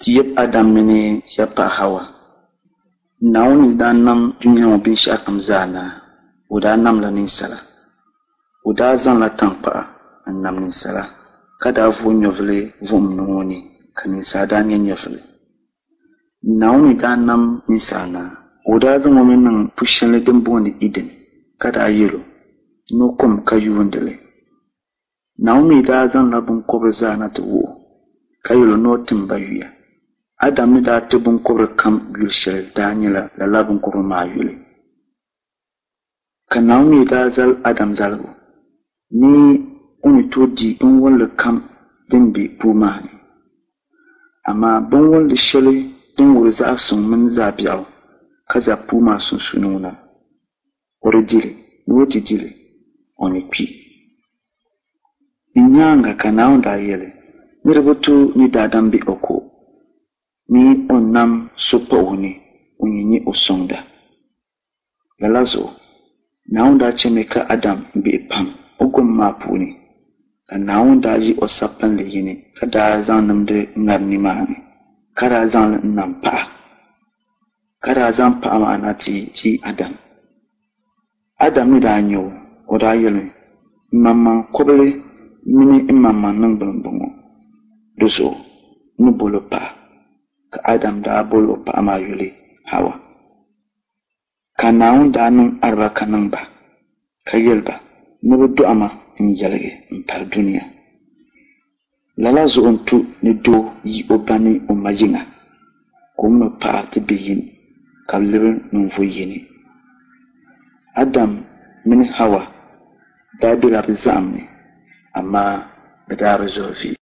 Ti yab Adam mini ti yab paɣa Hawa. Naawuni ni daa nam dunia ŋɔ binshɛɣukam zaa naai, o daa namla ninsala. O daa zaŋla taŋkpaɣu n-nam ninsala, ka daa vooi nyɛvili vuhim niŋ o ni, ka ninsala daa nya nyɛvili. Naawuni ni daa nam ninsala naai, o daa zaŋ o mi niŋ pu shɛli din booni Iden, ka daa yɛl o ni o kom ka yuundi li. Naawuni mi daa zaŋla biŋkɔbiri zaa na ti wuh o, ka yɛl o ni o tim ba yuya. Adam ni daa ti biŋkɔbiri kam yuli shɛli daa nyɛla lala biŋkɔbiri maa yuli. Ka Naawuni mi daa zali Adam zaligu ni o ni tooi di binwolli kam din be puu maa ni. Amaa binwolli shɛli din wuhiri zaɣ suŋ mini zaɣ biɛɣu ka za puu maa sunsuuni ŋuna, o di di li, ni o ti di li, o ni kpi. Di nyaaŋa ka Naawuni daa yɛli ni di bi tu ni daadam be o ko, ni o nam so pa o ni ŋun yɛn nyɛ o sɔŋda. Lala zuɣu, Naawuni daa chɛmi ka Adam gbihi pam o gom maa puuni, ka Naawuni daa yi o sapinli yini ka daa zaŋ nimdi ŋari nimaani, ka daa zaŋ li n-nam paɣa, ka daa zaŋ paɣa maa na ti ti Adam. Adam ni daa nya o, o daa yɛlimi, M maŋmaŋ kɔbili mini m maŋmaŋ niŋgbuni m-bɔŋɔ, di zuɣu n ni bol o paɣa. Ka Adam daa bol o paɣa maa yuli Hawa. Ka Naawuni daa niŋ alibarika niŋ ba, ka yɛli ba ni bɛ dɔɣi ma n-yɛligi m-pali dunia. Lala zuɣu n-tu ni doo yi o ba ni o ma yiŋa, ka o min o paɣa ti be yini, ka bɛ lebi ninvuɣ yini. Adam mini Hawa daa bela bɛ zaɣim ni, amaa bɛ daa bi zɔri vi.